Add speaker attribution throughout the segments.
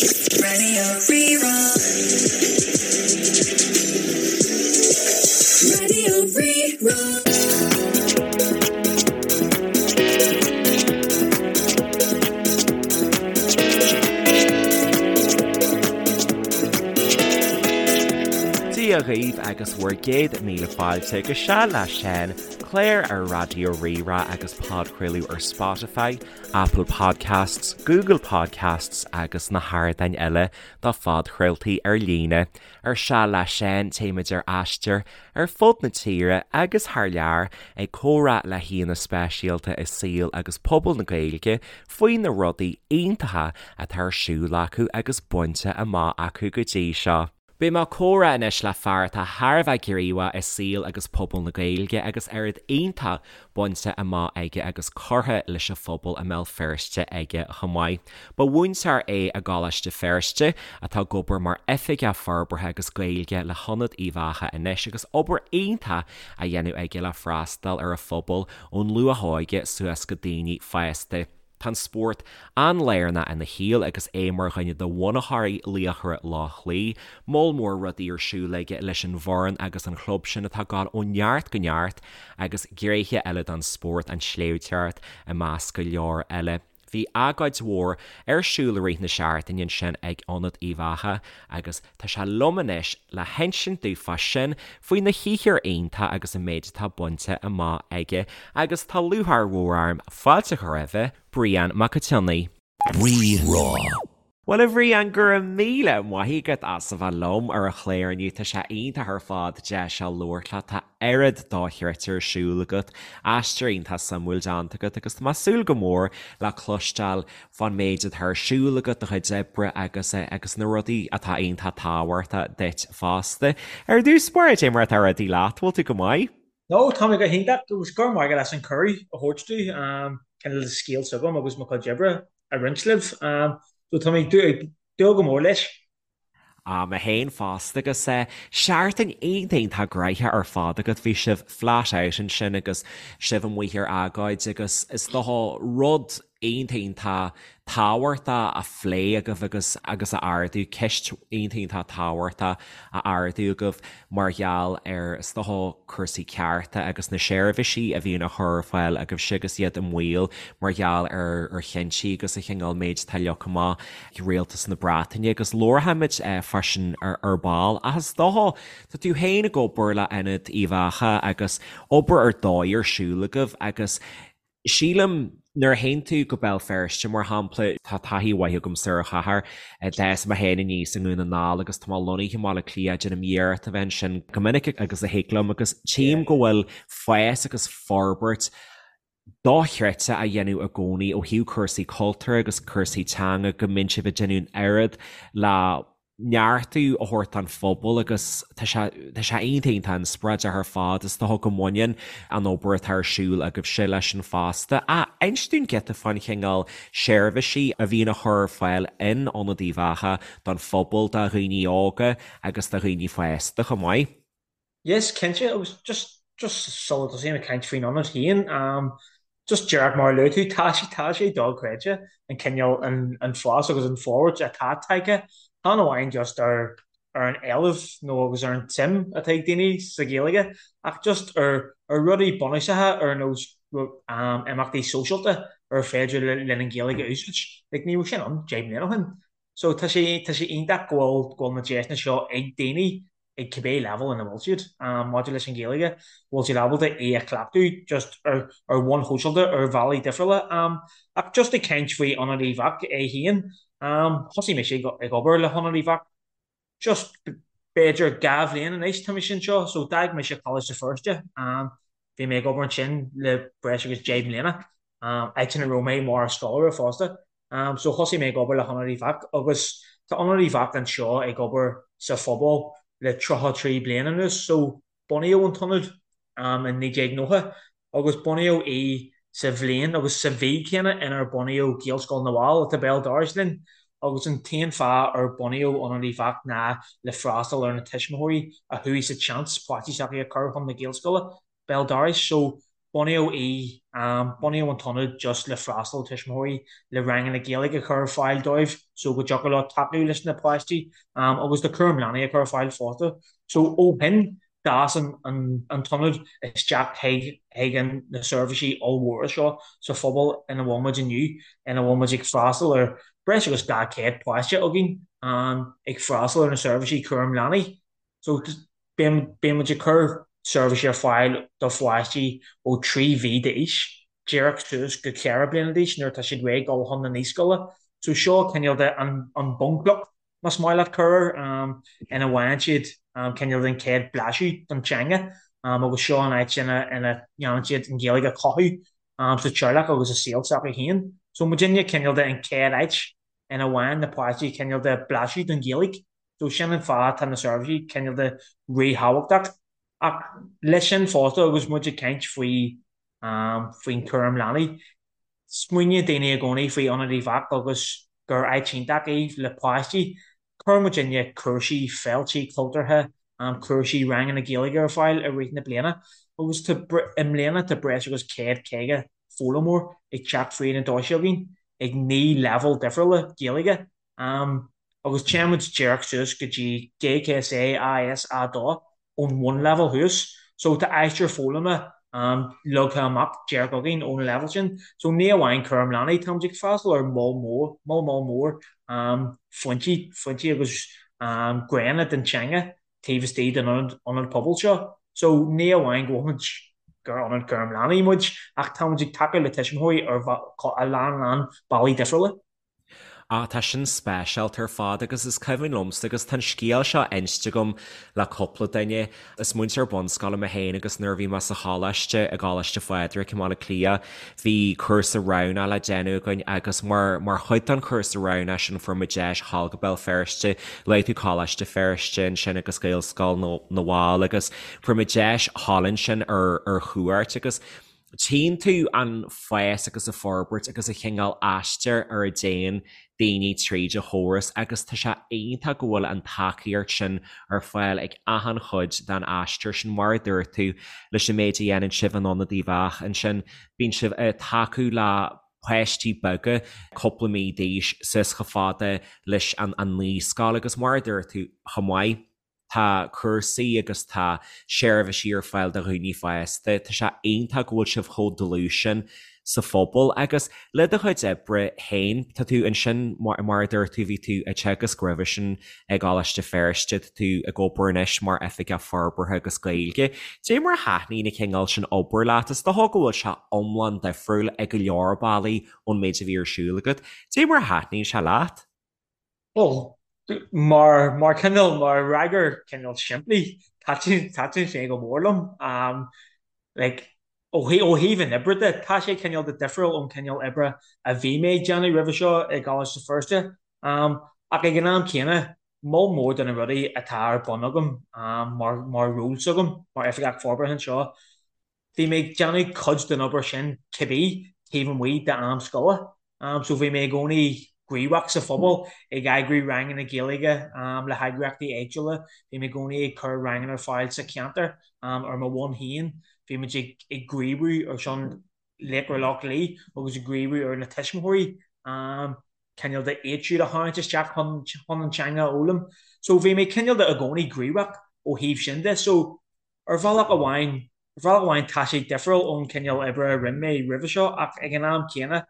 Speaker 1: Radio Rí-Rá. Radio Rí-Rá.
Speaker 2: Dia dhaoibh agus bhur gcéad míle fáilte go Seal le Seán, clár ar Raidió Rí-Rá agus podchraoladh ar Spotify, Apple Podcasts, Google Podcasts agus na hardáin eile do phodchraoltaí ar líne. Ar Seal le Seán téimid ar aistear ar fud na tíre agus thar lear ag comhrá le haíonna speisialta i saol agus pobal na Gaeilge faoi na rudaí iontacha atá ar siúl acu agus bainte amach acu go dtí seo. Beidh mé ag comhrá anois le fear atá thar a bheith gníomhach i saol agus pobal na Gaeilge agus oiread iontach bainte amach aige agus curtha leis an phobal i mBéal Feirste aige chomh maith. Ba mhúinteoir é i gColáiste Feirste atá ag obair mar Oifigeach Forbartha agus Gaeilge le hIonad Uíbh Eachach anois agus obair iontach á dhéanamh aige le freastal ar an phobal ón luath-óige suas go daoine fásta. Tá an spórt an-lárnach ina shaol agus é mar dhuine de bhunaitheoirí Laochra Loch Lao, moll mór rudaí ar siúl aige leis an bhfoireann agus an chlub sin atá ag gabháil ó neart go neart agus gnéithe eile den spórt, an tsléibhteoireacht i measc go leor eile. Bhí agóid mhór ar siúl i rith na seachtaine ansin ag Ionad Uíbh Eachach agus tá sé liom anois le hinsint dúinn fá sin, faoi na shaothar iontach agus an méid atá bainte amach aige agus tá lúcháir mhór orm fáilte a chur roimhe, Brian Mac an tSionnaigh.
Speaker 1: Rí-Rá.
Speaker 2: Bhuel a Bhriain, go raibh míle maith agat as a bheith liom ar an chlár inniu, tá sé iontach ar fad deis seo labhairt leat, tá oiread dochreidte ar siúl agat, aistear iontach suimiúil déanta agat agus tá mé ag súil go mór le cloisteáil fán méid atá ar siúl agat, do chuid oibre agus agus na rudaí atá iontach tábhachtach duit fosta. Ar dtús báire, cad é mar atá rudaí leat, bhfuil tú go maith?
Speaker 3: No, tá mé go hiontach agus go raibh maith agat as an cuireadh a thabhairt domh cineál scéal s'agam agus mo chuid oibre a roinnt libh. So tá mé ag dúil go mór leis.
Speaker 2: Ah, mé féin fosta agus seachtain iontach iontach gnoitheach ar fad agat, bhí sibh flat out ansin agus sibh amuigh ar agóid agus is dócha rud iontach iontach tábhachtach á phlé agaibh agus agus a ardú, ceist iontach iontach tábhachtach a ardú agaibh mar gheall ar is dócha cúrsaí cearta agus na seirbhísí a bhíonn á chur ar fáil agaibhse agus iad i mbaol mar gheall ar ar chinntí agus an chineál méid atá leagtha amach ag Rialtas na Breataine agus labharfaimid fá sin ar ball. Ach is dócha, tá tú féin ag obair le Ionad Uíbh Eachach agus obair ar dóigh ar siúl agaibh agus sílim nuair a théann tú go Béal Feirste mar shampla, tá taithí mhaith agamsa ar an chathair, d'fhás mé féin aníos i nDún na nGall agus tá mé lonnaithe i mBaile Átha Cliath, déanaim iarracht a bheith ansin go minic agus a thig liom agus tchím go bhfuil fás agus forbairt dochreidte á dhéanamh i gcónaí ó thaobh cúrsaí cultúir agus cúrsaí teanga, go mbíonn sibh ag déanamh an oiread le neartú a thabhairt don phobal agus tá sé tá sé iontach iontach inspioráideach ar fad. Is dócha go mbaineann an obair atá ar siúl agaibhse leis sin fosta. Ach inis dúinn giota fán chineál seirbhísí a bhíonn á chur ar fáil in Ionad Uíbh Eachach don phobal, do dhaoine óga agus do dhaoine fásta chomh maith.
Speaker 3: Yes, cinnte, agus just just sula dtosaím ag caint faoin ionad féin, just díreach mar a luaigh tú, tá sé tá sé dochreidte an cineál an an fás agus an forbairt atá tagtha, chan amháin just ar ar an éileamh nó agus ar an tsuim atá ag daoine sa Ghaeilge ach just ar ar rudaí bunúsacha ar nós imeachtaí sóisialta ar féidir linn an Ghaeilge a úsáid. Like ní raibh sin ann 10 mbliana ó shin. So tá sé tá sé iontach go bhfuil go bhfuil na deiseanna seo ag daoine ag cibé leibhéal ina bhfuil siad maidir leis an Ghaeilge, go bhfuil siad ábalta é a chleachtadh just ar ar bhonn shóisialta ar bhealaí difriúla. Ach just ag caint faoi Ionad Uíbh Eachach é féin, thosaigh mise ag obair le hIonad Uíbh Eachach just b'fhéidir 2 bhliain anois tá mise anseo, so d'fhág mise Coláiste Feirste, bhí mé ag obair ansin le breis agus 10 mbliana, áit ina raibh mé mar scoláire fosta. So thosaigh mé ag obair le hIonad Uíbh Eachach agus tá Ionad Uíbh Eachach anseo ag obair sa phobal le 33 bliain anuas. So bunaíodh an t-ionad in 1990 agus bunaíodh í sa bhliain agus sa mhí céanna inar bunaíodh Gaelscoil na bhFál atá béal dorais linn agus an t-aon fáth ar bunaíodh Ionad Uíbh Eachach ná le freastal ar na tuismitheoirí a chuaigh sa tseans páistí s'acu a chur chun na Gaelscoile béal dorais. So. Bunaíodh í, bunaíodh an t-ionad just le freastal ar tuismitheoirí le ranganna Gaeilge a chur ar fáil dóibh so go dtiocfadh leo tacú leis na páistí agus le cúram leanaí a chur ar fáil fosta. So ó shin d'fhás an t-ionad isteach chuig na seirbhísí ollmhóra seo sa phobal ina bhfuil muid inniu, ina bhfuil muid ag freastal ar breis agus 200 páiste againn ag freastal ar na seirbhísí cúram leanaí. So bíonn muid ag cur seirbhísí ar fáil do pháistí ó 3 mhí d'aois díreach suas go 4 bliana d'aois nuair atá siad réidh dul chun na naíscoile. So seo cineál de an bunchloch, más maith leat cur air, ina bhfaigheann siad cineál den chéad blaiseadh den teanga agus seo an áit ina ndéanann siad an Ghaeilge a chothú sa teaghlach agus i saol s'acu féin. So muidinne cineál de an chéad áit ina bhfaigheann na páistí cineál de blaiseadh den Ghaeilge. So sin an fáth atá na seirbhísí cineál de ríthábhachtach. Ach leis sin fosta agus muid ag caint faoi faoin chúram leanaí, smaoiníonn daoine i gcónaí faoi Ionad Uíbh Eachach agus gur áit iontach í le páistí. Cuireann muidinne cúrsaí, féiltí cultúrtha, cúrsaí ranganna Gaeilge ar fáil i rith na bliana agus tá i mbliana tá breis agus 150 foghlaimeoir ag teacht fríd na doirse againn ag 9 leibhéal difriúla Gaeilge. Agus téann muid díreach suas go dtí GCSE AS A2 ón bhunleibhéal thuas. So tá aistear foghlama leagtha amach díreach againn ón leibhéal sin. So ní amháin cúram leanaí, táimid ag freastal ar mholl mór, moll moll mór foinsí, foinsí agus gnéanna den teanga taobh istigh den ionad, ionad pobail seo. So ní amháin go bhfuil muid, gur ionad cúram leanaí muid, ach táimid ag tacú le tuismitheoirí ar a lán lán bealaí difriúla.
Speaker 2: Ah, tá sin speisialta ar fad agus is cuimhin liomsa agus tá an scéal seo inste agam le cúpla duine. Is múinteoir bunscoile mé féin agus nuair a bhí mé sa choláiste, i gColáiste Phádraig i mBaile Átha Cliath, bhí cúrsa roghnach le déanamh againn agus mar mar chuid den chúrsa roghnach sin fuair muid deis dhul go Béal Feirste, luaigh tú Coláiste Feirste ansin agus Gaelscoil na bhFál agus fuair muid deis dhul ansin ar ar chuairt agus Tchíonn tú an fás agus an forbairt agus an chineál aistir ar a dtéann daoine tríd an chóras agus tá sé iontach go bhfuil an tacaíocht sin ar fáil ag achan chuid den aistear sin. Mar a dúirt tú, leis an méid a dhéanann sibh in Ionad Uíbh Eachach ansin, bíonn sibh ag tacú le páistí beaga cúpla mí d'aois suas chomh fada leis an naíscoil agus mar a dúirt tú chomh maith, Tá cúrsaí agus tá seirbhísí ar fáil do dhaoine fásta. Tá sé iontach go bhfuil sibh chomh dlúth sin sa phobal. Agus le do chuid oibre féin, tá tú ansin, mar a dúirt tú, bhí tú ag teagasc roimhe sin i gColáiste Feirste, tá tú ag obair anois mar Oifigeach Forbartha agus Gaeilge. Cad é mar a thaitníonn an cineál sin obair leat? Is dócha go bhfuil sé iomlán difriúil i go leor bealaí ón méid a bhí ar siúl agat. Cad é mar a thaitníonn sé leat?
Speaker 3: Bhuel, mar, mar cineál, mar fhreagra cineál simplí, thaitin, thaitin sé go mór liom. Like, ó thaobh, ó thaobh an oibre de, tá sé cineál de difriúil ón cineál oibre a bhí mé ag déanamh roimhe seo i gColáiste Feirste. Ach ag an am céanna, moll mór de na rudaí atá ar bun agam mar, mar ról s'agam, mar Oifigeach Forbartha anseo, Bhí mé ag déanamh cuid den obair sin cibé taobh amuigh d'am scoile. So bhí mé i gcónaí gníomhach sa phobal, ag eagrú ranganna Gaeilge le heagraíochtaí éagsúla. Bhí mé i gcónaí ag cur ranganna ar fáil sa cheantar ar mo bhonn féin. Bhí muid ag gníomhú ar son Laochra Loch Lao agus ag gníomhú ar na tuismitheoirí cineál de iad siúd a tharraingt isteach chun an teanga a fhoghlaim. So bhí mé cineál de i gcónaí gníomhach ó thaobh sin de. So Ar bhealach amháin, ar bhealach amháin tá sé difriúil ón cineál oibre a rinne mé roimhe seo ach ag an am céanna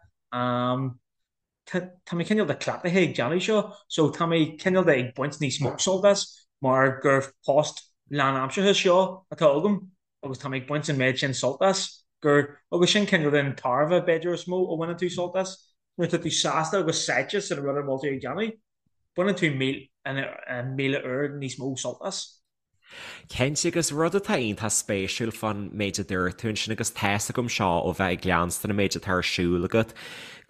Speaker 3: tá tá mé cineál de cleachtaithe ag déanamh seo so tá mé cineál de ag baint níos mó sult as mar gur post lánaimseartha seo atá agam agus tá mé ag baint an méid sin sult as gur agus sin cineál den tairbhe b'fhéidir is mó a bhaineann tú sult as nuair atá tú sásta agus sáite san rud a bhfuil tú ag déanamh baineann tú 1000 uair níos mó sult as.
Speaker 2: Cinnte, agus rud atá iontach spéisiúil fán méid a dúirt tú ansin, agus tá's agam seo ó bheith ag leanstan an méid atá ar siúl agat,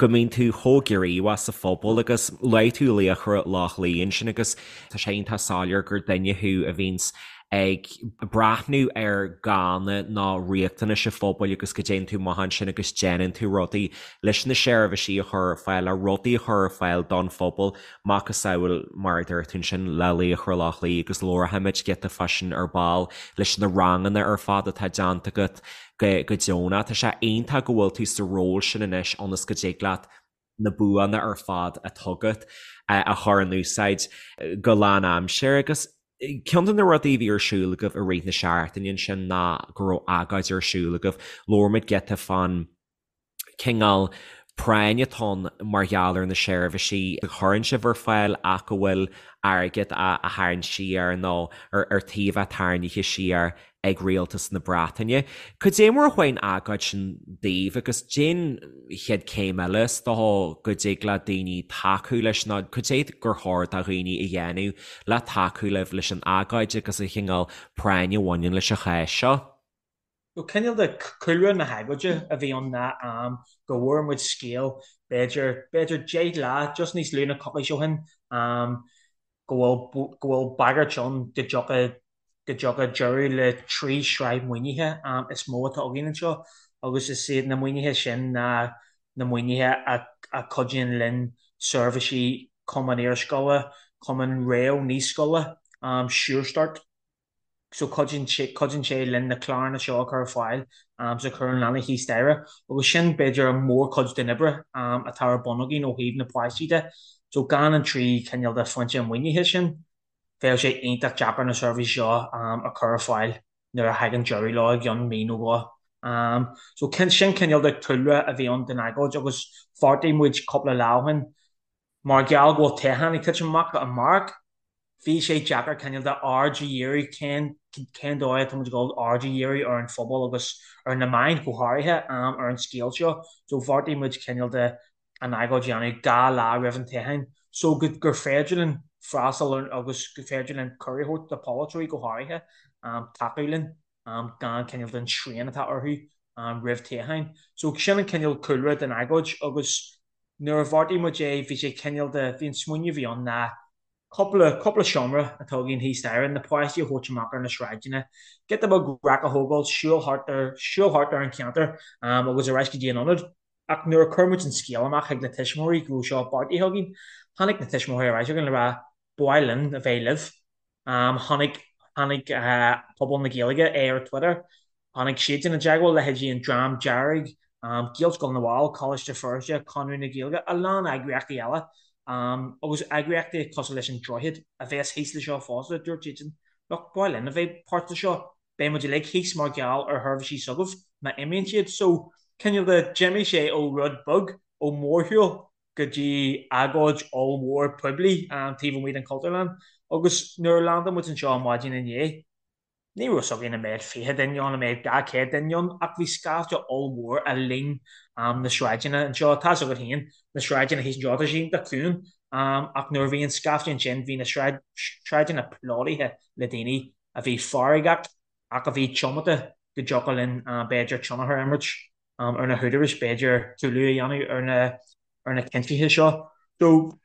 Speaker 2: go mbíonn tú chomh gníomhach sa phobal agus luaigh tú Laochra Loch Lao ansin agus tá sé iontach soiléir gur duine thú a bhíonns. ag breathnú ar ghánna nó riachtanais an phobail agus go dtéann tú amach ansin agus déanann tú rudaí leis na seirbhísí a chur ar fáil, le rudaí a chur ar fáil don phobal, macasamhail mar a dúirt tú ansin le Laochra Loch Lao agus labharfaimid giota fá sin ar ball leis na ranganna ar fad atá déanta agat go deonach. Tá sé iontach go bhfuil tú sa ról sin anois ionas go dtig leat na buanna ar fad atá agat a chur in úsáid go lánaimseartha agus ceann de na rudaí a bhí ar siúl agaibh i rith na seachtaine ansin ná go raibh agóid ar siúl agaibh. Labhair muid giota fán cineál práinn atá ann mar gheall ar na seirbhísí a chuireann sibh ar fáil ach go bhfuil airgead á tharraingt siar nó ar tí a bheith tarraingthe siar ag Rialtas na Breataine. Cad é mar a chuaigh an agóid sin daoibh agus cén chéad céim eile is dócha go dtig le daoine tacú leis nó cad é gur chóir do dhaoine a dhéanamh le tacú libh leis an agóid agus an chineál práinn a bhaineann leis an chás seo?
Speaker 3: Nó cineál de cúlra na hagóide a bhí ann ná go bhfuair muid scéal b'fhéidir, b'fhéidir 10 lá, just níos lú ná coicís ó shin, go bhfuil, go bhfuil bagairt ann go dtiocfaidh go dtiocfaidh deireadh le 3 shraith maoinithe is mó atá againn anseo agus is iad na maoinithe sin ná na maoinithe a chuidíonn linn seirbhísí Cumann Iarscoile, Cumann Réamh-Naíscoile, Sure Start. So cuidíonn sé, cuidíonn sé linn na cláranna seo a chur ar fáil sa chúram leanaí thíos staighre agus sin b'fhéidir an mhórchuid den oibre atá ar bun againn ó thaobh na páistí de. So gan an 3 chineál de foinse maoinithe sin, bheadh sé iontach deacair na seirbhísí seo a chur ar fáil nuair a thagann deireadh leo i gceann mí nó dhó. So sin cineál de chúlra a bhí ann don agóid agus bheartaigh muid cúpla lá ó shin, mar gheall go bhfuil toghchán ag titim amach amárach, bhí sé deacair cineál de aird a dhíriú, cén cén dóigh atá muid ag dul aird a dhíriú ar an phobal agus ar na meáin go háirithe ar an scéal seo. So bheartaigh muid cineál de an agóid a dhéanamh 2 lá roimh an toghchán so go gur féidir linn freastal ar agus gur féidir linn cuireadh a thabhairt do pholaiteoirí go háirithe tacú linn gan cineál den srian atá orthu roimh toghcháin. So sin an cineál cúlra den agóid agus nuair a bheartaigh muid é bhí sé cineál de, bhí an smaoineamh a bhí ann ná cúpla, cúpla seomra atá againn thíos staighre, na páistí a thabhairt amach ar na sráideanna, giota beag raic a thógáil, siúl thart ar, siúl thart ar an cheantar agus ar ais go dtí an ionad. Ach nuair a chuir muid an scéal amach chuig na tuismitheoirí go raibh seo beartaithe againn, tháinig na tuismitheoirí ar ais chugainn le rá, 'Ba mhaith linn a bheith libh. Tháinig, tháinig pobal na Gaeilge é ar Twitter, tháinig siadsan i dteagmháil, leithéidí an Dream Dearg, Gaelscoil na bhFál, Coláiste Feirste, Conradh na Gaeilge, a lán eagraíochtaí eile agus eagraíochtaí cosúil leis an Droichead a bheas thíos le seo fosta, dúirt siadsan, 'Look, ba mhaith linn a bheith páirt de seo. Beidh muid uilig thíos mar gheall ar sheirbhísí s'agaibh má imíonn siad. So, cineál de, d'imigh sé ó rud beag, ó mhórshiúl, go dtí agóid ollmhór poiblí taobh amuigh den Chultúrlann. Agus nuair a landáil muid anseo maidin inné, ní raibh 'fhios againn an mbeadh 20 duine ann, an mbeadh 200 duine ann, ach bhí scaifte ollmhór a líon na sráideanna anseo. Tá 'fhios agat féin, na sráideanna thíos anseo, tá siad iontach ciúin, ach nuair a bhí an scaifte ansin, bhí na sráideanna plódaithe le daoine a bhí feargach ach a bhí tiomanta go dtiocfadh linn b'fhéidir tionchar a imirt ar na húdaráis, b'fhéidir cúlú a dhéanamh ar na ar na cinntithe seo. So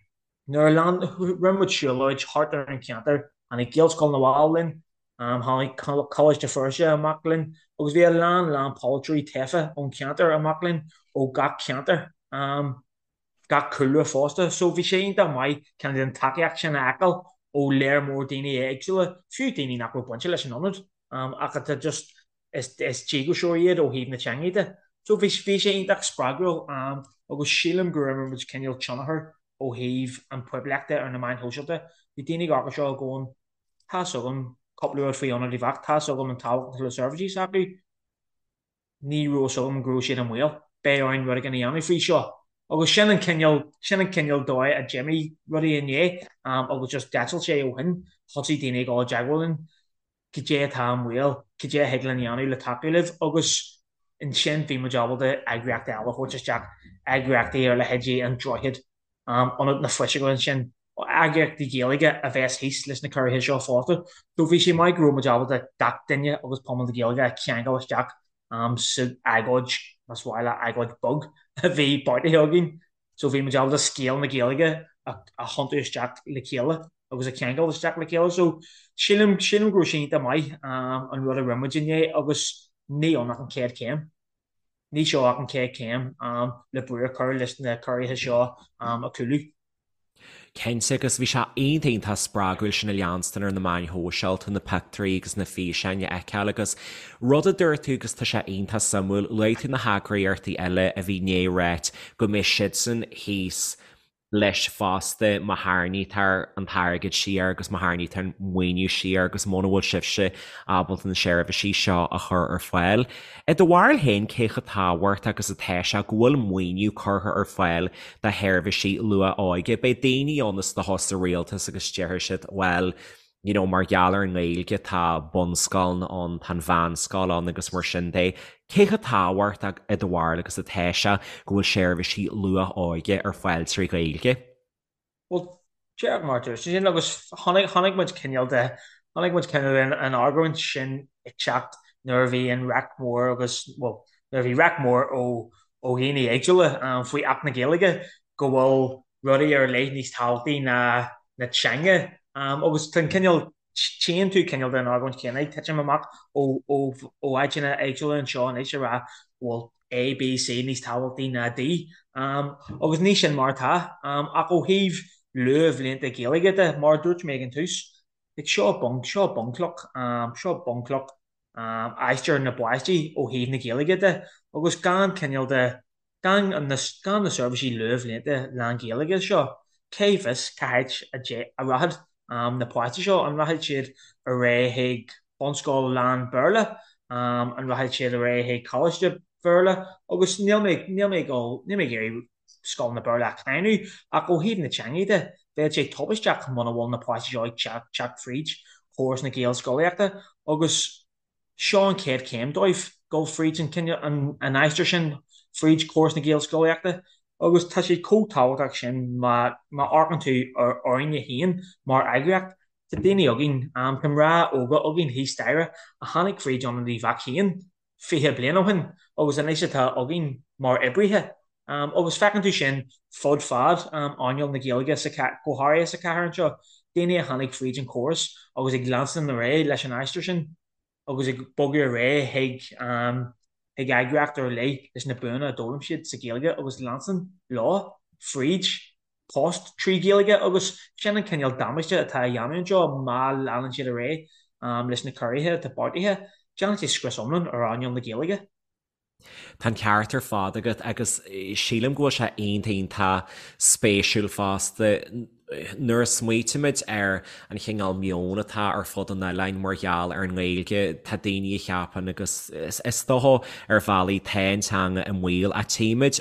Speaker 3: nuair a lean, rinne muid siúlóid thart ar an cheantar, tháinig Gaelscoil na bhFál linn, tháinig Coláiste Feirste amach linn agus bhí a lán lán polaiteoirí tofa ón cheantar amach linn ó gach ceantar. gach cúlra fosta. So bhí sé iontach maith cineál den tacaíocht sin a fheiceáil ó léar mór daoine éagsúla, fiú daoine nach raibh bainte leis an ionad ach atá just, is díograiseoirí iad ó thaobh na teanga de. So bhí bhí sé iontach spreagúil agus sílim gur imir muid cineál tionchar ó thaobh an poiblíochta ar na meáin shóisialta. Bhí daoine ag amharc air seo going, tá's agam cúpla rud faoi Ionad Uíbh Eachach, tá's agam an tábhacht atá le seirbhísí s'acu, ní raibh fhios agam go raibh siad i mbaol, beidh orainn rud éigin a dhéanamh faoi seo. Agus sin an cineál, sin an cineál dóigh a d'imigh rudaí inné agus just d'eitil sé ó shin, thosaigh daoine ag dul i dteagmháil linn, cad é atá i mbaol, cad é a thig linn a dhéanamh le tacú libh agus ansin bhí muid ábalta eagraíochtaí eile a thabhairt isteach, eagraíochtaí ar leithéidí An Droichead, Ionad na Fuiseoige ansin, eagraíochtaí Gaeilge a bheas thíos leis na ciorruithe seo fosta. So bhí sé maith go raibh muid ábalta gach duine agus pobal na Gaeilge a cheangal isteach sa agóid, más mhaith leat, agóid beag a bhí beartaithe againn. So bhí muid ábalta scéal na Gaeilge a thiontú isteach le chéile agus a cheangal isteach le chéile. So sílim, sílim go raibh sé iontach maith an rud a rinne muid inné agus ní ann ach an chéad chéim. Ní seo ach an chéad chéim le brú a chur leis na ciorruithe seo a chúlú.
Speaker 2: Cinnte, agus bhí sé iontach iontach spreagúil sin a leanstan ar na meáin shóisialta, na pictiúirí agus na físeáin a fheiceáil agus rud a dúirt tú agus tá sé iontach suimiúil, luaigh tú na heagraíochtaí eile a bhí i ndiaidh ráit go mbeidh siadsan thíos leis fosta má tharraingítear an t-airgead siar agus má tharraingítear an maoiniú siar agus muna bhfuil sibhse ábalta na seirbhísí seo a chur ar fáil. I do bharúil féin, cé chomh tábhachtach agus atá sé go bhfuil maoiniú curtha ar fáil do sheirbhísí luath-óige? Beidh daoine ann is dócha sa rialtas agus déarfaidh siad, bhuel, you know, mar gheall ar an nGaeilge tá bunscoileanna ann, tá an mheánscoil ann agus mar sin de. Cé chomh tábhachtach i do bharúil agus atá sé go bhfuil seirbhísí luath-óige ar fáil trí Ghaeilge?
Speaker 3: Bhuel, díreach mar a dúirt tú sin agus chonaic, chonaic muid cineál de, chonaic muid cineál den an argóint sin ag teacht nuair a bhí an raic mór agus, bhuel, nuair a bhí raic mór ó, ó dhaoine éagsúla faoi Acht na Gaeilge go bhfuil rudaí ar leith níos tábhachtaí ná na teanga agus tá an cineál, Tchíonn tú cineál den argóint chéanna ag titim amach ó áiteanna éagsúla anseo anois a rá go bhfuil A, B, C níos tábhachtaí ná D. Agus ní sin mar atá. Ach ó thaobh luathbhlianta Gaeilge de, mar a dúirt mé ag an tús, like seo bun, seo bunchloch, seo bunchloch aistear na bpáistí ó thaobh na Gaeilge de agus gan cineál de Gan na seirbhísí luathbhlianta lán-Ghaeilge seo, cé bhfios cá háit a rachaidh na páistí seo? An rachaidh siad ar aghaidh chuig bunscoil lán-Bhéarla? An rachaidh siad ar aghaidh chuig coláiste Béarla? Agus níl mé níl mé ag dul níl mé ag iarraidh scoileanna Béarla a cháineadh, ach ó thaobh na teanga de, bheadh sé tubaisteach muna bhfuil na páistí seo ag teacht fríd chóras na Gaelscolaíochta agus Seo an chéad chéim dóibh, dul fríd an cineál, an aistear sin fríd chóras na Gaelscolaíochta agus tá sé chomh tábhachtach sin má amharcann tú orainne féin mar eagraíocht. Tá daoine againn, tá mná óga againn thíos staighre a tháinig fríd Ionad Uíbh Eachach féin 20 bliain ó shin agus anois atá againn mar oibrithe. Agus feiceann tú sin fud fad earnáil na Gaeilge, go háirithe sa chathair anseo, daoine a tháinig fríd an chóras agus ag leanstan ar aghaidh leis an aistear sin agus ag bogadh ar aghaidh chuig chuig eagraíocht ar leith leis na buanna a d'fhoghlaim siad sa Ghaeilge agus leanstan leo fríd post trí Ghaeilge agus sin an cineál damáiste atá á dhéanamh anseo má leanann siad ar aghaidh leis na ciorruithe atá beartaithe, déanann sé scrios iomlán ar earnáil na Gaeilge.
Speaker 2: Tá an ceart ar fad agat agus sílim go bhfuil sé iontach iontach spéisiúil fosta nuair a smaoitímid ar an chineál meoin atá ar fud an oileáin mar gheall ar an nGaeilge, tá daoine a cheapann agus is dócha ar bhealaí tá an teanga i mbaol ach tchímid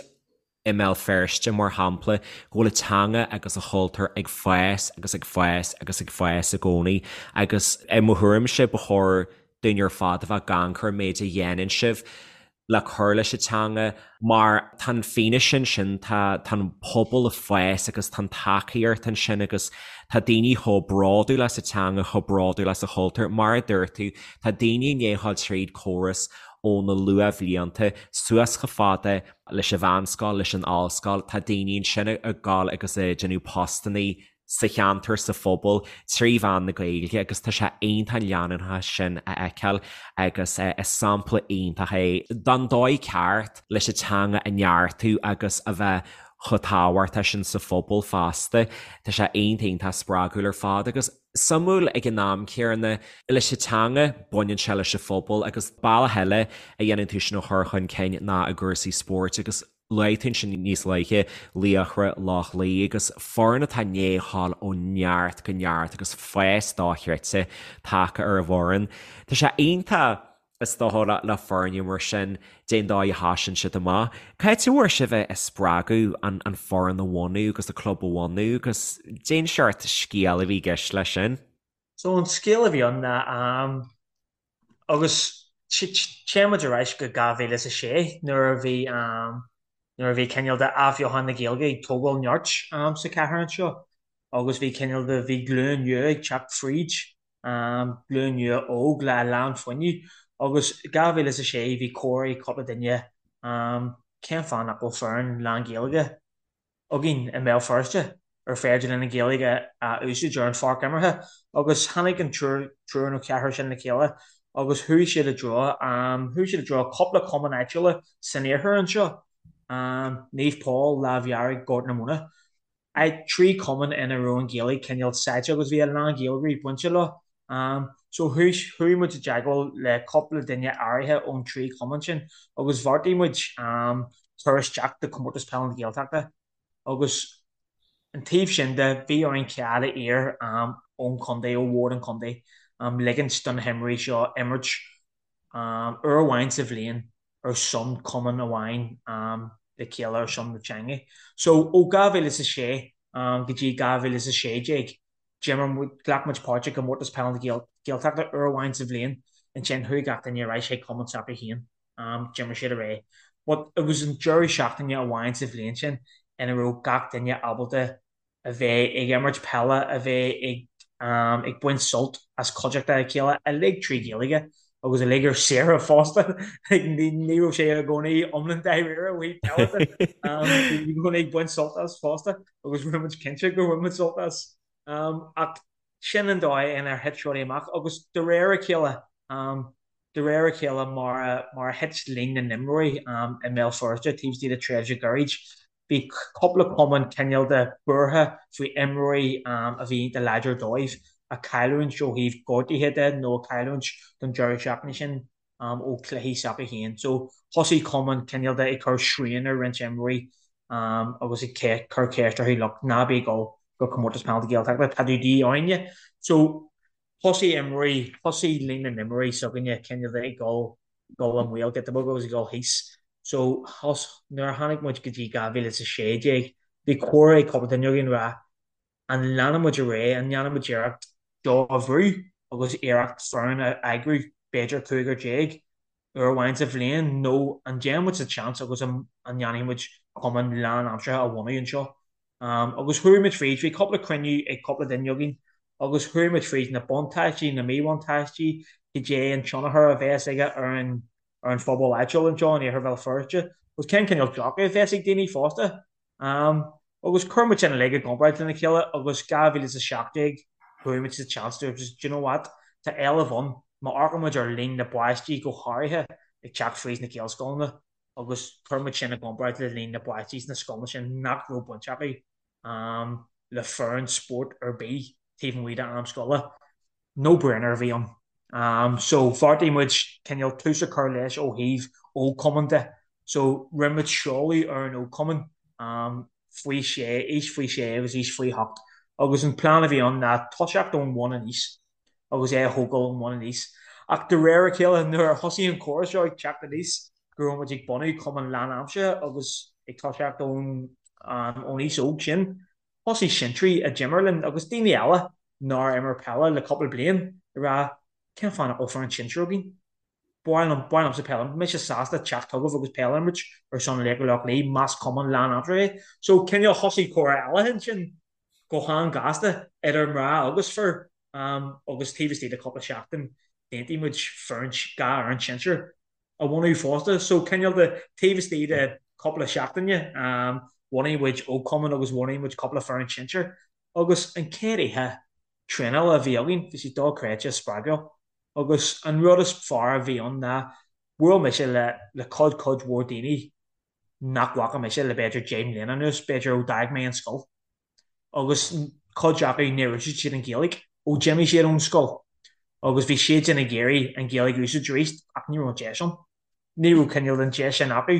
Speaker 2: i mBéal Feirste, mar shampla, go bhfuil a teanga agus a chultúr ag fás agus ag fás agus ag fás i gcónaí agus i mo thuairimse ba chóir dúinn ar fad a bheith ag amharc ar an méid a dhéanann sibh le cur leis an teanga mar tá an fianaise ansin, tá tá an pobal ag fás agus tá an tacaíocht ansin agus tá daoine chomh bródúil as a teanga, chomh bródúil as a chultúr. Mar a dúirt tú, tá daoine i ndiaidh a ghabháil tríd córas ó na luathbhlianta suas chomh fada leis an mheánscoil, leis an ollscoil, tá daoine ansin ag gabháil agus ag déanamh postannaí sa cheantar, sa phobal, trí mheán na Gaeilge agus tá sé iontach an leanúnachas sin a fheiceáil agus is sampla iontach é den dóigh ceart leis an teanga a neartú agus a bheith chomh tábhachtach sin sa phobal fosta. Tá sé iontach iontach spreagúil ar fad agus. Suimiúil ag an am céanna, leis an teanga, baineann sé leis an phobal agus bealach eile a dhéanann tú sin a chur chun cinn ná i gcúrsaí spóirt agus luaigh tú ansin níos luaithe Laochra Loch Lao agus foireann atá i ndiaidh a ghabháil ó neart go neart agus fás dochreidte tagtha ar an bhfoireann. Tá sé iontach is dócha le foirne mar sin, cén dóigh a thosaíonn siad amach. Cá háit a bhfuair sibh an spreagadh an foireann a bhunú agus an club a bhunú agus cén seort scéal a bhí i gceist leis sin?
Speaker 3: So an scéal a bhí ann ná agus téann muid ar ais go 2006 nuair a bhí nuair a bhí cineál de athbheochan na Gaeilge ag tógáil nirt sa chathair anseo agus bhí cineál de bhí glúin nua ag teacht fríd glúin nua óg le a lán fuinnimh agus 2006 bhí comhrá ag cúpla duine cén fáth nach bhfuil foireann lán-Ghaeilge againn i mBéal Feirste? ar féidir linn an Ghaeilge a úsáid ar an pháirc imeartha agus tháinig an triúr triúr nó ceathrar sin le chéile agus chuaigh siad i dtreo chuaigh siad i dtreo cúpla cumann áitiúla san iarthar anseo, Naomh Pól, Lámh Dhearg, Gort na Móna. 3 cumann ina raibh an Ghaeilge cineál sáite agus bhí a lán Gaeilgeoirí bainte leo. So chuaigh chuaigh muid i dteagmháil le cúpla duine áirithe ón trí chumann sin agus bheartaigh muid cur isteach do Comórtas Peile na Gaeltachta agus an taobh sin de bhí orainn cead a iarraidh ón chontae, ó bhord an chontae, ligint do na himreoirí seo imirt uair amháin sa bhliain ar son cumann amháin le chéile ar son na teanga. So ó 2006 go dtí 2016 d'imir muid, ghlac muid páirt i gComórtas Peile na Gaeltachta uair amháin sa bhliain, ansin chuaigh gach duine ar ais chuig cumann s'acu féin, d'imir siad ar aghaidh. But it was an deireadh seachtaine amháin sa bhliain sin ina raibh gach duine ábalta a bheith ag imirt peile, a bheith ag ag baint sult as cuideachta a chéile, uilig trí Ghaeilge agus uilig ar saoire fosta. Ní raibh sé i gcónaí iomlán dáiríre ó thaobh peile de. Bhí i gcónaí ag baint sult as fosta agus rinne muid cinnte gur bhain muid sult as. Ach sin an dóigh inar thit rudaí amach agus de réir a chéile, De réir a chéile, mar a thit líon na n-imreoirí i mBéal Feirste taobh istigh de tréimhse ghairid, bhí cúpla cumann cineál de buartha faoi imreoirí a bhí iontach láidir dóibh a chailliúint ó thaobh gortuithe de nó a chailliúint don deireadh seachtaine sin ó chluichí s'acu féin. So thosaigh cumainn cineál de ag cur srian ar roinnt imreoirí agus ag cur ceist orthu, look, ná bí ag dul go Comórtas Peile na Gaeltachta, tá tú de dhíth orainne. So Thosaigh imreoirí, thosaigh líon na n-imreoirí s'againne cineál de ag dul, dul i mbaol giota beag agus ag dul thíos. So, thos, nuair a tháinig muid go dtí 2016, bhí comhrá ag cúpla duine againn ag rá, an leanfaidh muid ar aghaidh, an ndéanfaidh muid iarracht seo a bhrú agus iarracht foireann a eagrú, b'fhéidir cúigear déag, uair amháin sa bhliain nó an dtéann muid sa tseans agus an ndéanfaidh muid cumann lánaimseartha a bhunú anseo. Agus chuaigh muid fríd, bhí cúpla cruinniú ag cúpla duine againn agus chuaigh muid fríd na buntáistí, na míbhuntáistí, cad é an tionchar a bheas aige ar an ar an phobal áitiúil anseo in Iarthar Bhéal Feirste agus cén cineál dearcadh a bheas ag daoine fosta. Agus chuir muid sin uilig i gcomparáid lena chéile agus 2017 chuaigh muid sa tseans dúirt muid, do you know what, tá éileamh ann, má amharcann muid ar líon na bpáistí go háirithe ag teacht fríd na Gaelscoileanna agus chuir muid sin i gcomparáid le líon na bpáistí sna scoileanna sin nach raibh baint acu le foireann spóirt ar bith taobh amuigh d'am scoile. No brainer a bhí ann. So bheartaigh muid cineál tús a chur leis ó thaobh ógchumann de. So rinne muid seoladh ar an ógchumann faoi sé, aois faoi sé agus aois faoi hocht. Agus an plean a bhí ann ná toiseacht ón bhun aníos agus é a thógáil ón bhun aníos. Ach de réir a chéile nuair a thosaigh an comhrá seo ag teacht aníos go raibh muid ag bunú cumann lánaimseartha agus ag toiseacht ón ón aois óg sin, Thosaigh sinsearaigh a d'imir linn agus daoine eile nár imir peile le cúpla bliain ag rá cén fáth nach bhfuil foireann sinsir againn? Ba mhaith liom, ba mhaith liomsa peil a imirt, mise sásta teacht chugaibh agus peil a imirt ar son Laochra Loch Lao más cumann lánaimseartha é. So cineál thosaigh comhrá eile ansin go han-ghasta idir mná agus fir agus taobh istigh de cúpla seachtain d'aontaigh muid foireann, 2 fhoireann sinsir. a bhunú fosta. So cineál de taobh istigh de cúpla seachtaine bhunaigh muid ógchumann agus bhunaigh muid cúpla foireann sinsir agus an chéad oíche traenála a bhí againn bhí sé dochreidte spreagúil agus an rud is fearr a bhí ann ná bhuail mise le le cuid cuid mhór daoine nach bhfaca mise le b'fhéidir 10 mbliana anuas, b'fhéidir ó d'fhág mé an scoil. agus cuid acu níor úsáid siad an Ghaeilge ó d'imigh siad ón scoil agus bhí siadsan ag iarraidh an Ghaeilge a úsáid arís ach ní raibh an deis ann. Ní raibh cineál den deis sin acu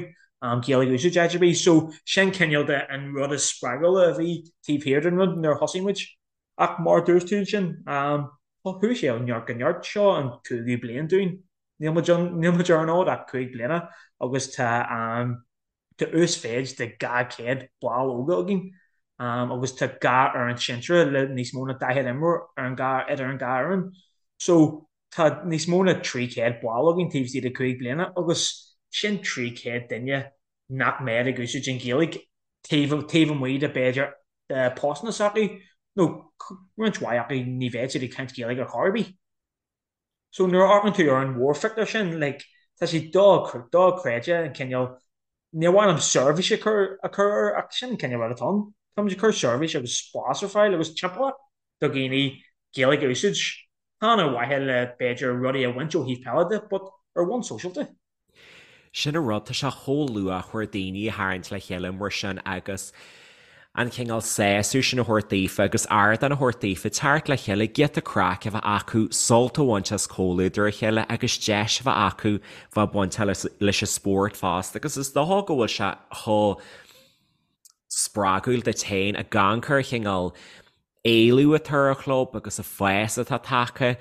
Speaker 3: Gaeilge a úsáid áit ar bith. So sin cineál de an rud is spreagúla a bhí taobh thiar den rud nuair a thosaigh muid. Ach mar a dúirt tú ansin, chuaigh sé ó neart go neart. Seo an cúigiú bliain dúinn. Níl muid níl muid ar an fhód ach 5 bliana agus tá Tá uasmhéid de 200 ball óga againn agus tá 2 fhoireann sinsear le níos mó ná 40 imreoir ar an dhá idir an dhá fhoireann. So tá níos mó ná 300 ball againn taobh istigh de 5 bliana agus sin 300 duine nach mbeadh ag úsáid an Ghaeilge taobh taobh amuigh de b'fhéidir de postanna s'acu nó roinnt mhaith acu ní bheadh siad ag caint Gaeilge ar chor ar bith. So nuair a amharcann tú ar an mhórphictiúr sin, like, tá sé dochreidte an cineál, níor mhaith liom seirbhís a chur a chur air ach sin an cineál rud atá ann. Táimid ag cur seirbhís agus spás ar fáil agus timpeallacht do dhaoine Gaeilge a úsáid, chan ar mhaithe le b'fhéidir rudaí a bhaint ó thaobh peile de but ar bhonn sóisialta.
Speaker 2: Sin an rud, tá sé chomh luachmhar daoine a tharraingt le chéile mar sin agus an cineál sásamh sin a thabhairt daofa agus ardán a thabhairt daofa teacht le chéile, giota craic a bheith acu, sult a bhaint as comhluadar a chéile agus deis a bheith acu bheith bainteach leis an spórt fosta agus is dócha go bhfuil sé chomh spreagúil duit féin ag amharc ar an chineál éileamh atá ar an chlub agus an fás atá tagtha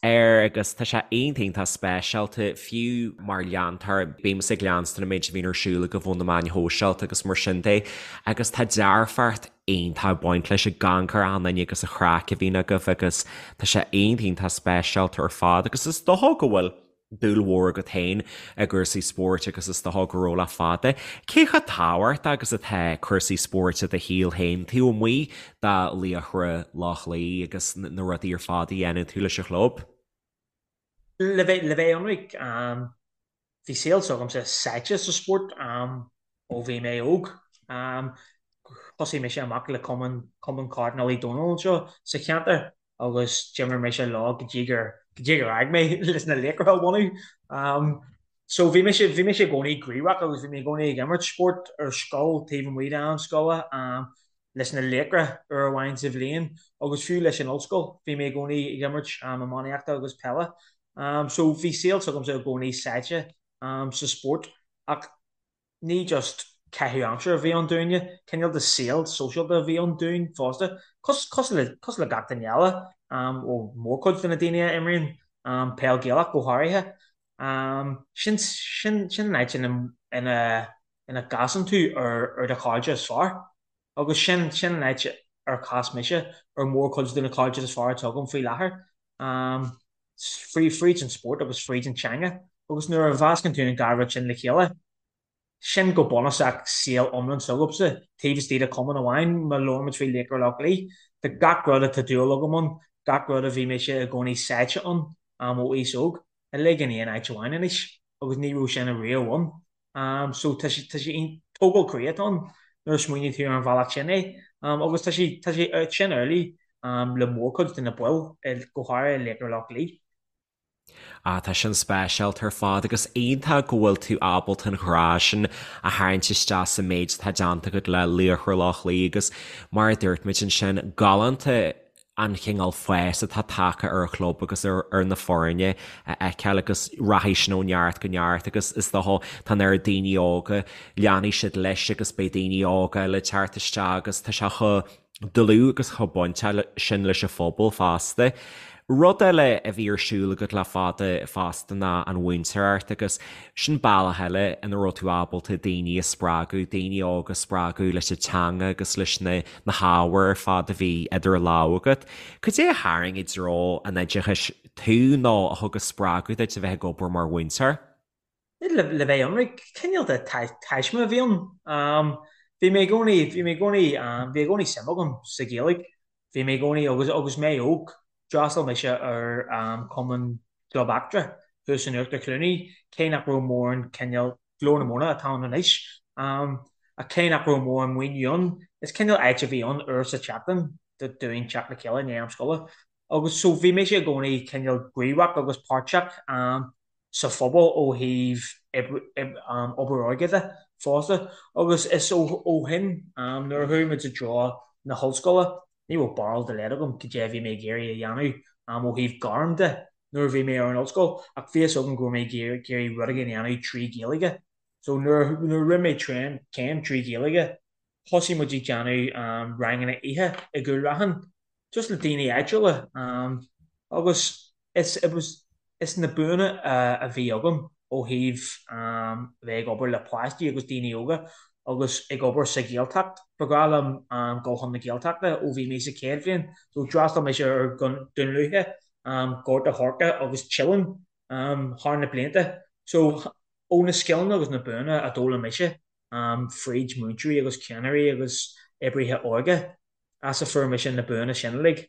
Speaker 2: air agus tá sé iontach iontach speisialta, fiú mar leantóir, bímse ag leanstan an méid a bhíonn ar siúl agaibh ó na meáin shóisialta agus mar sin de agus tá dearfacht iontach ag baint leis ag amharc ar achan duine agus an chraic a bhíonn agaibh agus tá sé iontach iontach speisialta ar fad agus is dócha go bhfuil dúil mhór agat féin i gcúrsaí spóirt agus is dócha go raibh le fada. Cé chomh tábhachtach agus atá cúrsaí spóirt i do shaol féin taobh amuigh de Laochra Loch Lao agus na rudaí ar fad a dhéanann tú leis an chlub?
Speaker 3: Le bheith le bheith ionraic, bhí saol s'agamsa sáite sa spórt ó bhí mé óg. Thosaigh mise amach le cumann Cumann Cairdinéil Uí Dónaill anseo sa cheantar agus d'imir mise leo go dtí gur go dtí gur fhág mé leis na Laochra a bhunú. So bhí mise bhí mise i gcónaí gníomhach agus bhí mé i gcónaí ag imirt spórt ar scoil taobh amuigh d'am scoile leis na Laochra uair amháin sa bhliain agus fiú leis an ollscoil bhí mé i gcónaí ag imirt iománaíochta agus peile. So bhí saol s'agamsa i gcónaí sáite sa spórt ach Ní just caitheamh aimsire a bhí ann dúinne, cineál de saol sóisialta a bhí ann dúinn fosta, cosúil le cosúil le gach duine eile, ó mórchuid de na daoine a imríonn peil Gaelach go háirithe. Sin sin sin an áit ina ina ina gcasann tú ar ar do chairde is fearr agus sin sin an áit ar chas mise ar mórchuid de na cairde is fearr atá agam faoi láthair. Fríd an spórt agus fríd an teanga agus nuair a mheascann tú an dá rud sin le chéile, sin go bunúsach saol iomlán s'agamsa, taobh istigh de chumann amháin, má labhraímid faoi Laochra Loch Lao, tá gach rud atá dúil agam ann, gach rud a bhí mise i gcónaí sáite ann ó aois óg, uilig in aon áit amháin anois agus ní raibh sin ariamh ann. So tá sé tá sé tógáil croí atá ann nuair a smaoiníonn tú ar an bhealach sin é. Agus tá sé tá sé sin amhlaidh le mórchuid de na baill, go háirithe Laochra Loch Lao.
Speaker 2: Ah, tá sin speisialta ar fad agus iontach go bhfuil tú ábalta an grá sin a tharraingt isteach sa méid atá déanta agat le Laochra Loch Lao agus mar a dúirt muid ansin, galánta an chineál fás atá tagtha ar an chlub agus ar na foirne a fheiceáil agus rachaidh sin ó neart go neart agus is dócha tá an oiread daoine óga, leanfaidh siad leis agus beidh daoine óga eile ag teacht isteach agus tá sé chomh dlúth agus chomh bainteach sin leis an phobal fosta. Rud eile a bhí ar siúl agat le fada fosta ná an mhúinteoireacht agus sin bealach eile ina raibh tú ábalta daoine a spreagadh, daoine óga a spreagadh leis an teanga agus leis na na hábhair ar fad a bhí idir lámha agat. Cad é a tharraing i dtreo an oideachais tú nó a thug an spreagadh duit a bheith ag obair mar mhúinteoir?
Speaker 3: Le bheith ionraic, cineál de taisme a bhí ann. Bhí mé i gcónaí, bhí mé i gcónaí, bhí i gcónaí suim agam sa Ghaeilge. Bhí mé i gcónaí, agus agus mé óg, d'fhreastail mise ar Chumann Club Eachtra thuas in Uachtar Chluanaí, cé nach raibh mórán cineál Glór na Móna atá ann anois. Ach cé nach raibh mórán maoiniú ann, is cineál áit a bhí ann uair sa tseachtain dúinn teacht le chéile i ndiaidh am scoile. Agus so bhí mise i gcónaí cineál gníomhach agus páirteach sa phobal ó thaobh obair óige de fosta. Agus is ó shin, nuair a chuaigh muid i dtreo na hollscoile, ní raibh barúil dá laghad agam cad é a bhí mé ag iarraidh a dhéanamh ó thaobh gairm de. nuair a bhí mé ar an ollscoil ach bhí fhios agam go raibh mé ag iarraidh rud éigin a dhéanamh trí Ghaeilge. So nuair nuair a rinne mé tréan céim trí Ghaeilge thosaigh muid ag déanamh ranganna oíche i gCúil Raithin just le daoine áitiúla agus is it was is na buanna a bhí agam ó thaobh bheith ag obair le páistí agus daoine óga agus ag obair sa Ghaeltacht. Ba bhreá liom dul chun na Gaeltachta ó bhí mé sa chéad bhliain so d'fhreastail mise ar Dún Lúiche Gort a' Choirce agus Teileann thar na blianta. So, ó na scileanna agus na buanna a d'fhoghlaim mise fríd múinteoirí agus ceannairí agus oibrithe óige, as a fuair mise na buanna sin uilig.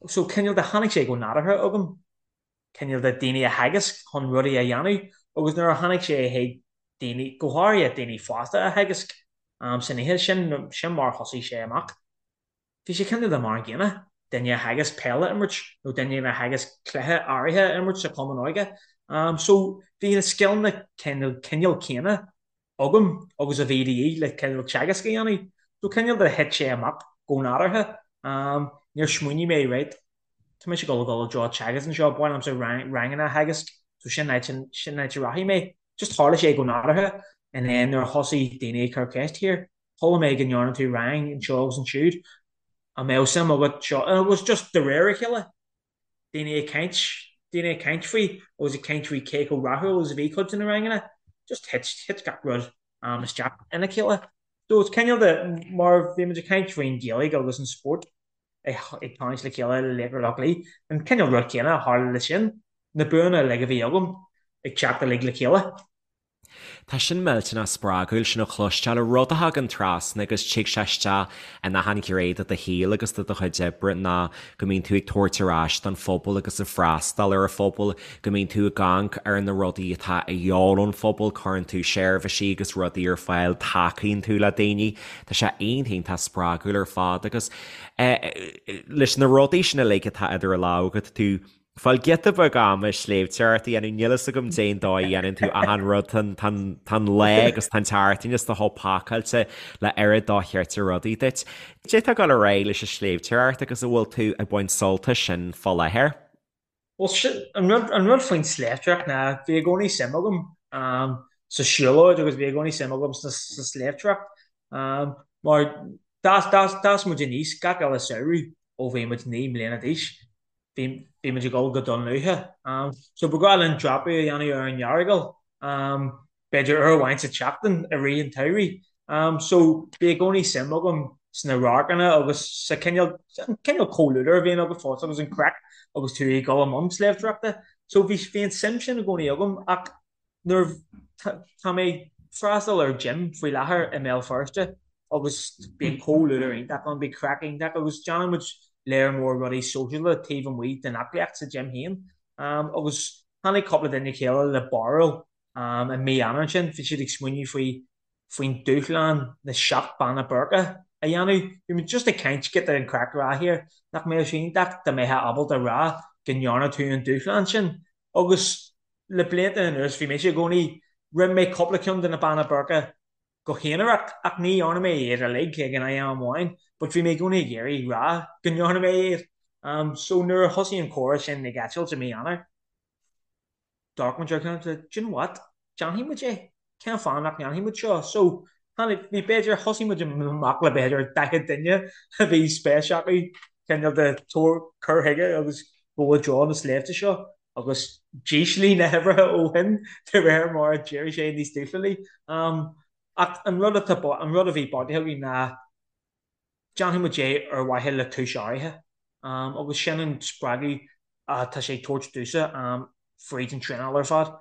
Speaker 3: So, cineál de, tháinig sé go nádúrtha agam, cineál de daoine a theagasc chun rudaí a dhéanamh agus nuair a tháinig sé chuig daoine, go háirithe daoine fásta a theagasc san oíche, sin, sin mar a thosaigh sé amach. Bhí sé cineál de mar an gcéanna, duine a theagasc peil a imirt nó duine a theagasc cluiche áirithe a imirt sa chumann óige. So bhí na scileanna cineál céanna agam agus a bhí de dhíth le cineál teagasc a dhéanamh. So cineál de thit sé amach go nádúrtha. Níor smaoinigh mé, right, tá mise ag dul a dhul i dtreo teagasc anseo, ba mhaith liomsa ranganna a theagasc, so sin áit, sin áit a rachaidh mé. Just tharla sé go nádúrtha and then nuair a thosaigh daoine ag cur ceist here, chuala mé go ndearna tú rang anseo agus ansiúd, an mbeadh suim agat seo, and it was just de réir a chéile, daoine ag caint, daoine ag caint faoi agus ag caint faoi cé chomh rathúil agus a bhí cuid de na ranganna, just thit, thit gach rud isteach ina chéile. So it's cineál de, mar bhí muid ag caint faoin Ghaeilge agus an spórt ag tarraingt le chéile le Laochra Loch Lao, an cineál rud céanna a tharla le sin, na buanna uilig a bhí agam ag teacht uilig le chéile.
Speaker 2: Tá sin millteanach spreagúil sin a chloisteáil, rud a thagann trasna agus tig sé isteach in achan ghné de do shaol agus de do chuid oibre ná go mbíonn tú ag tabhairt ar ais don phobal agus ag freastal ar an phobal, go mbíonn tú ag amharc ar na rudaí atá a dhíobháil ón phobal, cuireann tú seirbhísí agus rudaí ar fáil, tacaíonn tú le daoine. Tá sé iontach iontach spreagúil ar fad agus leis na rudaí sin uilig atá idir lámha agat, tú Fáil giota beag ama sléibhteoireacht a dhéanamh, níl fhios agam cén dóigh a dhéanann tú achan rud, tá an lá agus tá an tseachtain is do chomh pacáilte le oiread dochreidte rudaí duit. Cad é atá ag dul ar aghaidh leis an sléibhteoireacht agus an bhfuil tú ag baint sult as sin fá láthair?
Speaker 3: Bhuel, sin, an rud, an rud faoin sléibhteoireacht ná bhí i gcónaí suim agam sa siúlóid agus bhí i gcónaí suim agam sa sléibhteoireacht mar d'fhás, d'fhás, d'fhás muid aníos gach uile samhradh ó bhí muid 9 mbliana d'aois. Bhí muid ag dul go Dún Lúiche. So ba ghnách linn dreapadh a dhéanamh ar an Earagail, b'fhéidir uair amháin sa tseachtain i rith an tsamhraidh. So bhí i gcónaí suim agam sna radharcanna agus sa cineál, an cineál comhluadar a bhíonn agat fosta agus an craic agus tú ag dul i mbun sléibhteoireachta. So bhí, bhí an suim sin i gcónaí agam ach nuair tá mé ag freastal ar gym faoi láthair i mBéal Feirste agus bíonn comhluadar iontach ann, bíonn craic iontach agus déanann muid léar mór rudaí sóisialta taobh amuigh den aclaíocht sa gym féin. Agus tháinig cúpla duine le chéile le barúil i mí Eanáir ansin, bhí siad ag smaoineamh faoi faoin dúshlán na seacht Beanna Boirche a dhéanamh. Bhí muid just ag caint, giota an craic a rá here, nach mbeadh sé iontach dá mbeifeá ábalta a rá go ndearna tú an dúshlán sin agus Le blianta anuas bhí mise i gcónaí, rinne mé cúpla ceann de na Beanna Boirche go haonarach ach ní dhearna mé iad uilig ag an am amháin but bhí mé i gcónaí ag iarraidh rá go ndearna mé iad. So nuair a thosaigh an comhrá sin ag eitilt i mí Eanáir, d'amharc muid ar a chéile do you know what, déanfaidh muid é. Cén fáth nach ndéanfaidh muid seo? So, tháinig, bhí b'fhéidir, thosaigh muid amach le b'fhéidir 40 duine a bhí spéis acu cineál de tabhair, cur chuige agus dul i dtreo na sléibhte seo agus d'ísligh na huimhreacha ó shin de réir mar a d'éirigh sé níos dúshlánaí. Ach an rud atá, an rud a bhí beartaithe againn ná déanfaidh muid é ar mhaithe le cúis áirithe agus sin an spreagadh atá sé ag tabhairt domhsa fríd an traenáil ar fad.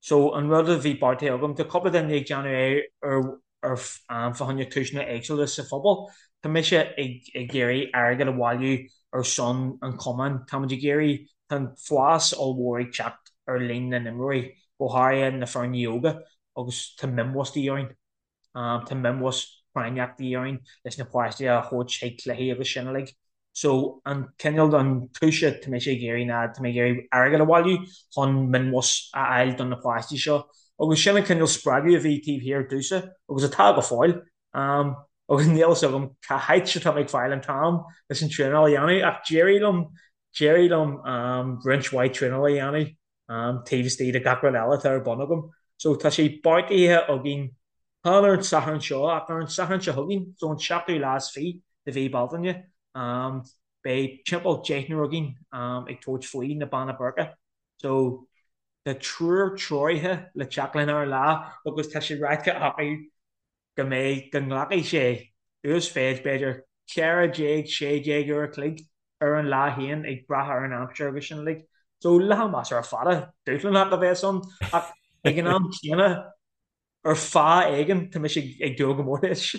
Speaker 3: So an rud a bhí beartaithe agam, tá cúpla duine ag déanamh é ar ar fá choinne cúiseanna éagsúla sa phobal. Tá mise ag ag iarraidh airgead a bhailiú ar son an chumainn. Tá muid ag iarraidh, tá an fás ollmhór ag teacht ar líon na n-imreoirí, go háirithe na foirne óga agus tá minibus de dhíth orainn. Tá minibus práinneach de dhíth orainn leis na páistí a thabhairt chuig cluichí agus sin uilig. So an cineál an chúis atá mise ag iarraidh ná tá mé ag iarraidh airgead a bhailiú chun minibus a fháil do na páistí seo. Agus sin an cineál spreagadh a bhí taobh thiar domhsa agus atá go fóill. Agus níl fhios agam cá háit atá mé ag fáil an t-am leis an traenáil a dhéanamh ach d'éirigh liom, d'éirigh liom roinnt mhaith traenála a dhéanamh taobh istigh de gach rud eile atá ar bun agam. So tá sé beartaithe againn, chan ar an Satharn seo ach ar an Satharn seo chugainn, so an seachtú lá is fiche de mhí Bealtaine, beidh timpeall deichniúr againn ag tabhairt faoi na Beanna Boirche. So tá triúr treoraithe le teacht linn ar an lá agus tá sé ráite acu go mbeidh, go nglacfaidh sé uasmhéid b'fhéidir 14, 16 uair a chloig ar an lá féin ag brath ar an aimsir agus sin uilig. So lá measartha fada, dúshlánach a bheas ann ach ag an am céanna ar fáth éigin tá mise ag dúil go mór leis.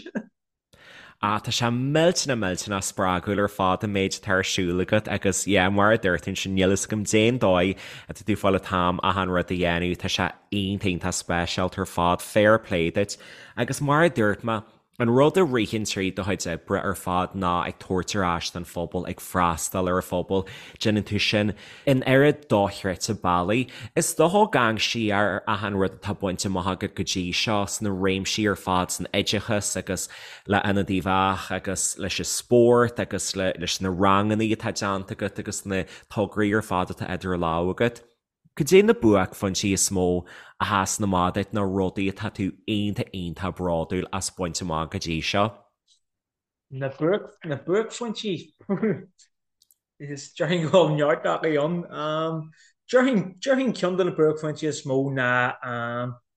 Speaker 2: Ah, tá sé millteanach millteanach spreagúil ar fad an méid atá ar siúl agat agus yeah, mar a dúirt tú ansin, níl fhios agam cén dóigh atá tú ag fáil an t-am achan rud a dhéanamh, tá sé iontach iontach speisialta ar fad, fair play duit. Agus mar a dúirt mé. An rud a ritheann tríd do chuid oibre ar fad ná ag tabhairt ar ais don phobal, ag freastal ar an phobal. Déanann tú sin in oiread dochreidte bealaí. Is dócha ag amharc siar ar achan rud atá bainte amach agat go dtí seo sna réimsí ar fad, san oideachas agus le Ionad Uíbh Eachach agus leis an spórt agus leis na ranganna atá déanta agat agus na tograí ar fad atá idir lámha agat. Cad é na buaicphointí is mó a sheasann amach duit nó rudaí atá tú iontach iontach bródúil as baint amach go dtí seo?
Speaker 3: Na buaic, na buaicphointí? Is déarfainn go bhfuil neart acu ann. Déarfainn, déarfainn ceann de na buaicphointí is mó ná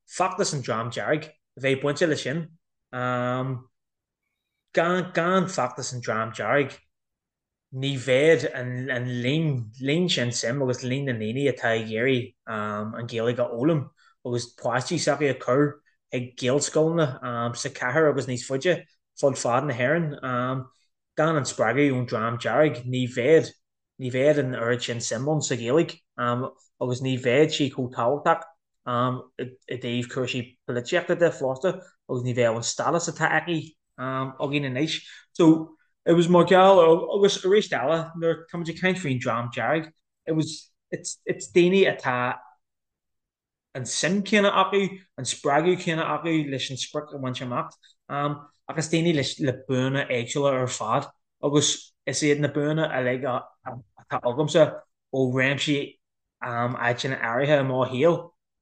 Speaker 3: feachtas an Dream Dearg, a bheith bainte leis sin. Gan, gan feachtas an Dream Dearg, ní bheadh an líon, líon sin suim agus líon na ndaoine atá ag iarraidh an Ghaeilge a fhoghlaim agus páistí s'acu a chur ag Gaelscoileanna sa chathair agus níos faide fud fad na hÉireann. Gan an spreagadh ón Dream Dearg ní bheadh, ní bheadh an oiread sin suim ann sa Ghaeilge agus ní bheadh sí chomh tábhachtach i dtaobh cúrsaí polaitíochta de fosta agus ní bheadh an stádas atá aici againn anois. So, it was mar gheall ar, agus arís eile, nuair tá muid ag caint faoin Dream Dearg, it was, it's, it's daoine atá an suim céanna acu, an spreagadh céanna acu leis an sprioc a bhaint amach, ach is daoine leis, le buanna éagsúla ar fad agus is iad na buanna uilig atá agamsa ó réimsí áiteanna áirithe i mo shaol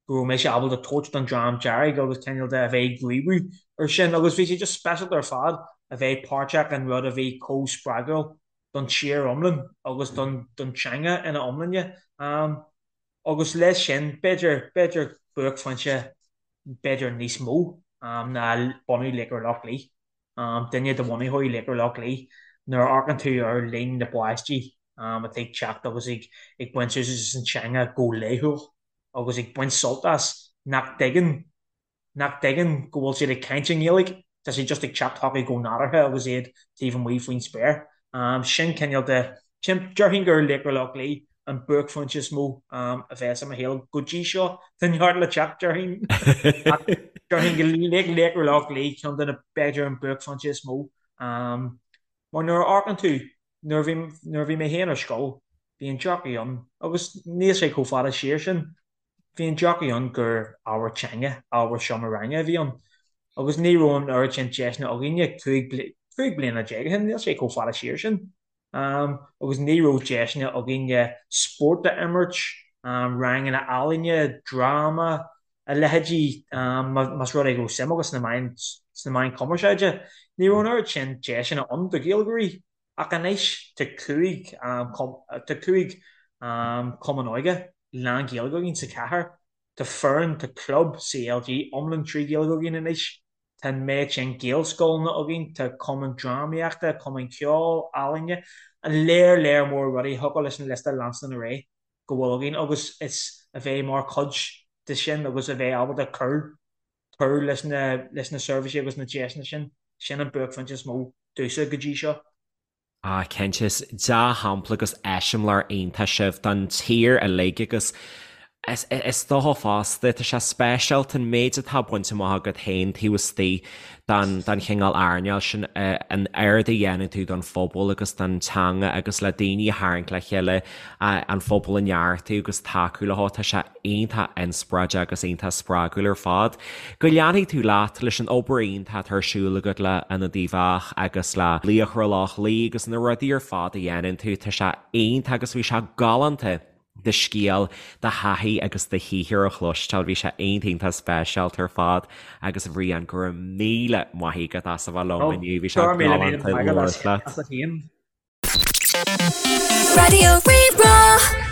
Speaker 3: go raibh mise ábalta tabhairt don Dream Dearg agus cineál de a bheith ag gníomhú ar sin agus bhí sé just speisialta ar fad a bheith páirteach in rud a bhí chomh spreagúil don tír iomlán agus don don teanga ina iomláine. Agus leis sin, b'fhéidir, b'fhéidir buaicphointe b'fhéidir níos mó ná bunú Laochra Loch Lao. Duine de bhunaitheoirí Laochra Loch Lao, nuair a amharcann tú ar líon na bpáistí atá ag teacht agus ag ag baint úsáid as an teanga go laethúil agus ag baint sult as, nach dtuigeann nach dtuigeann go bhfuil siad ag caint i nGaeilge, tá sé just ag teacht chucu go nádúrtha agus iad taobh amuigh faoin spéir. Sin cineál de, sin, déarfainn gur Laochra Loch Lao an buaicphointe is mó a bheas i mo shaol go dtí seo. Tá neart le teacht, déarfainn. Ach déarfainn go Laochra Loch Lao ceann de na, b'fhéidir an buaicphointe is mó. Mar nuair a amharcann tú, nuair a bhí, nuair a bhí mé féin ar scoil, bhí an dearcadh ann, agus níl sé chomh fada siar sin, Bhí an dearcadh ann gur ábhar teanga, ábhar seomra ranga a bhí ann agus ní raibh an oiread sin deiseanna againne 15 bliana ó shin, níl sé chomh fada siar sin, agus ní raibh deiseanna againne spórt a imirt, ranganna ealaíne, dráma, a leithéidí, más rud é go raibh suim agat sna meáin, sna meáin chumarsáide. Ní raibh an oiread sin deiseanna ann do Ghaeilgeoirí. Ach anois tá 5 tá 5 cumann óige lán-Ghaeilge againn sa chathair. Tá foireann, tá club CLG iomlán trí Ghaeilge againn anois. Tá an méid sin Gaelscoileanna againn, tá cumann drámaíochta, cumann ceoil, ealaíne, an léar léar mór rudaí a thiocfadh leis an liosta leanstan ar aghaidh go bhfuil againn agus is a bheith mar chuid de sin agus a bheith ábalta cur cur leis na leis na seirbhísí agus na deiseanna sin, sin an buaicphointe is mó domhsa go dtí seo.
Speaker 2: Ah cinnte, is dea-shampla agus eiseamláir iontach sibh don tír uilig agus is is dócha fosta, tá sé speisialta an méid atá bainte amach agat féin taobh istigh den den chineál earnáil sin, an oiread a dhéanann tú don phobal agus don teanga agus le daoine a tharraingt le chéile, an phobal a neartú agus tacú leo, tá sé iontach inspioráideach agus iontach spreagúil ar fad. Go leanfaidh tú leat leis an obair iontach atá ar siúl agat le Ionad Uíbh Eachach agus le Laochra Loch Lao agus na rudaí ar fad a dhéanann tú, tá sé iontach agus bhí sé galánta do scéal, do thaithí agus do shaothar a chloisteáil, bhí sé iontach iontach speisialta ar fad agus a Bhriain, go raibh míle maith agat as a bheith liom inniu, bhí sé galánta labhairt leat.
Speaker 1: Raidió Rí-Rá.